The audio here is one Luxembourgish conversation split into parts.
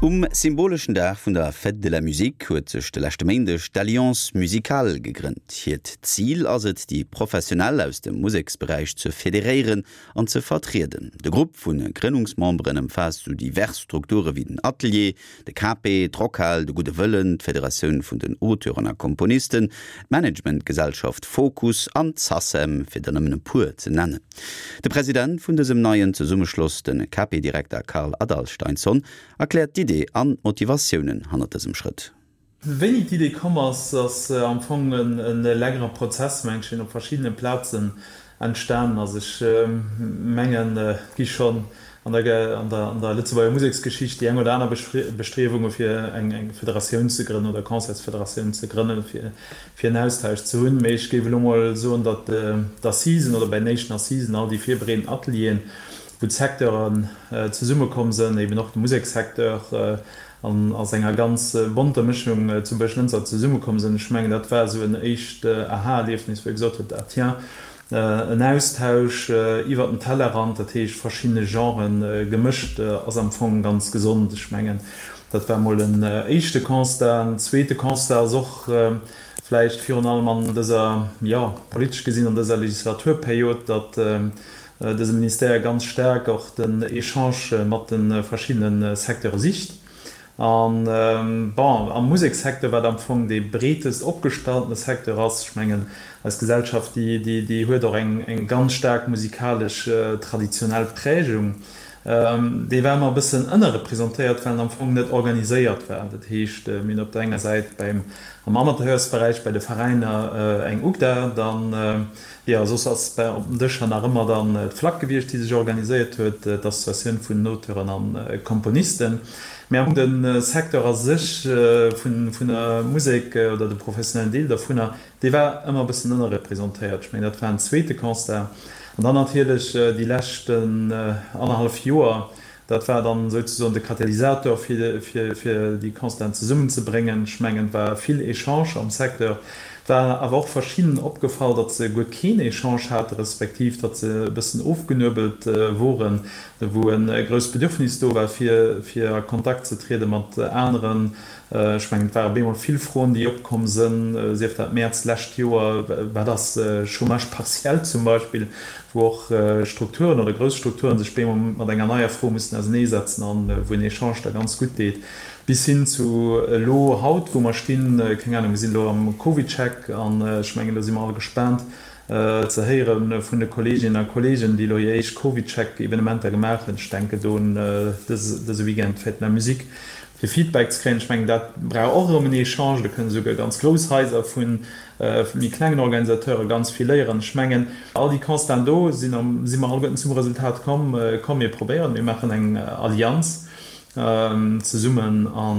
Um symboleschen Dag vun der Fête de la Musique huet sech de leschte Méindeg d'Alliance Musicale gegrënnt. Hiert Zil ass et, déi Professionell aus dem Museksberäich ze federéieren an ze vertrieden. De Grupp vu Grënnungsmemberen ëmfaasst sou divers Strukture wéi den Atelier, de KP, d'Rockhal, de Gudde Wëllen, d'Federatioun vun den Auteuren a Komponisten, d'Managementgesellschaft Fokus an d'Sacem, fir der nëmmen e puer ze nennen. De President vun dësem neien Zesummeschloss, de KP-Direkter Karl Adalsteinsson, erkläert d'Idee an d'Motivatiounen hannert dësem Schrëtt. Wéini d'Idee komm ass, ass am Fong e längere Prozess, mengen ech, deen op verschiddene Plazen entstanen ass. Ech mengen, et gi schonn an der Lëtzebuerger Museksgeschicht déi eng oder aner Bestriewunge fir eng Federatioun ze grënnen oder Concertsfederatioun ze grënnen, fir en Austausch ze hunn. Mee ech géif elo mol soen, datt d'Assisen oder bei den éischten Assisen all déi virbereedend Atelieren, wou d'Secteuren zesummekomm sënn, eben och de Musekssecteur an a senger ganz bonter Mëschung zu Buerglënster zesummekomm sënn. Ech mengen, dat war esou en éischt Aha-Erliefnis, wou ee gesot huet, ah tiens, en Austausch iwwer den Tellerrand, dat heescht verschiddene Genren gemëscht, ass am Fong ganz gesond. Ech mengen, dat war mol en éischte Constat. En zweete Constat ass och vläicht virun allem an dëser, jo, politesch gesinn an dëser Legislaturperiod, datt dëse Ministère ganz staark och den Echange mat de verschiddene Secteure sicht. An, bon, am Musekssecteur, wat am Fong dee breetest opgestalltene Secteur ass, ech mengen, eis Gesellschaft, déi, déi huet och eng, eng ganz staark musikalesch traditionell Prägung, dee war ëmmer e bëssen ënnerrepresentéiert, well en am Fong net organiséiert war. Dat heescht, mir hunn op der enger Säit beim, am Amateursberäich, bei de Veräiner eng UGDA, dann, Jo, soss ass bei op den Dëscher nach ëmmer dann d'FLAC gewiescht, déi sech organiséiert huet, d'Associatioun vun den Auteuren a Komponisten. Mä am Fong de Secteur a sech vun der Musek oder de professionellen Deel dervunner, dee war ëmmer e bëssen ënnerrepresentéiert. Ech mengen, dat war en zweete Constat. An dann natierlech déi leschten annerhallef Joer, Dat war dann souzesoen de Katalysator, fir déi Constaten zesummenzebréngen. Ech mengen, et war vill Echange am Secteur. Et war awer och verschiddenen opgefall, datt se guer keen Echange hate respektiv datt se e bëssen ofgenuebelt woren, wou e grousst Bedürfnis do war, fir a Kontakt ze triede mat aneren. Ech mengen, et ware bemol vill Froen, déi opkomm sënn, sief dat Mäerz d'lescht Joer, wat ass Chômage partiel zum Beispill, wou och Strukturen oder grouss Strukturen sech bemol mat enger neier Fro mussen auserneesetzen an wou en Echange da ganz gutt deet, bis hin zu elo haut, wou mer stinn, keng Ahnung, mir sinn elo am CovidCheck an ech mengen, do si mer all gespaant ze héiere vun de Kolleeginnen a Kolleegen, déi elo hir éischt CovidCheck-Evenementer gemaach hunn. Ech denken do un dëse Weekend d'Fête de la Musique. Fir Feedback ze kréien. Ech mengen, dat brauch och erëm en Echange. Do kënnen esouguer ganz grouss Haiser vu méi klengen Organisateure ganz vill léieren. Ech mengen, all déi Constaten do sinn, si mer alleguerten zum Resultat komm, komm mir probéieren, mir maachen eng Allianz zesummen a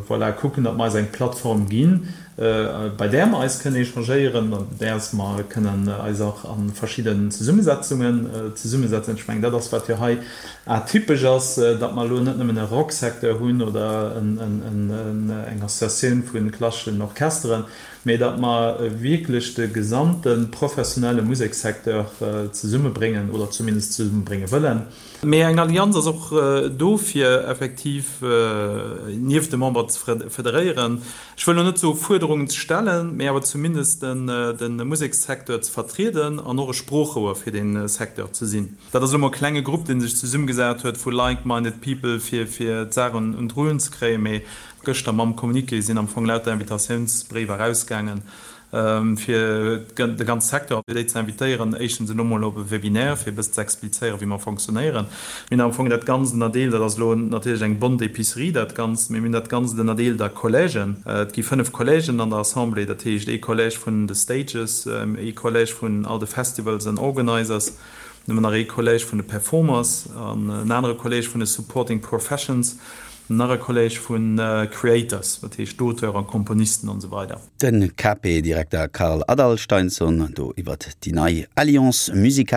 voilà, kucken, datt mer eis eng Plattform ginn, bei där mer eis kënnen échangéieren, an däers mer kënnen eis och a verschidden Zesummesetzungen zesummesetzen. Ech mengen, dat ass, wat jo hei atypesch ass, datt mer elo net nëmmen e Rocksecteur hunn oder eng Associatioun vu klasseschen Orchesteren, mee datt mer wierklech de gesamte professionelle Musekssecteur zesummebréngen oder zumindest zesummebrénge wëllen. Mee eng Allianz ass och do, fir effektiv nieft de Memberen ze federéieren. Ech wëll elo net soe Fuerderungen ze stellen, mee awer zumindest de Musekssecteur ze vertrieden an och e Sproochrouer fir dee Secteur ze sinn. Dat ass elo mol e klenge Grupp, dee sech zesummegesat huet vu like-minded people, fir d'Saach un d'Rullen ze kréien. Mee gëschter mam Communiqué sinn am Fong lauter Invitatiounsbréiwer erausgaangen, fir de ganze Secteur, fir déi ze invitéieren, éischtens elo mol op e Webinaire, fir e bëssen ze explizéieren, wéi mer fonctionnéieren. Mir hunn am Fong dat Ganzt ënnerdeelt, dat ass elo natierlech eng bonne d'épicerie, dat Ganzt, mee mir hunn dat Ganzt ënnerdeelt a Collègen. Et gi 5 Collègen an der Assemblée, dat heescht ee Collège vun de Stages, ee Collège vun all de Festivals an Organizers, dann hu mer nach ee Collège vun de Performers an en anere Collège vun de Supporting Professions, nach e Collège vu Creators, dat heescht d'Auteurs a Komponisten an esou weider. De KP-Direkter Karl Adalsteinsson do iwwert déi nei Alliance Musicale.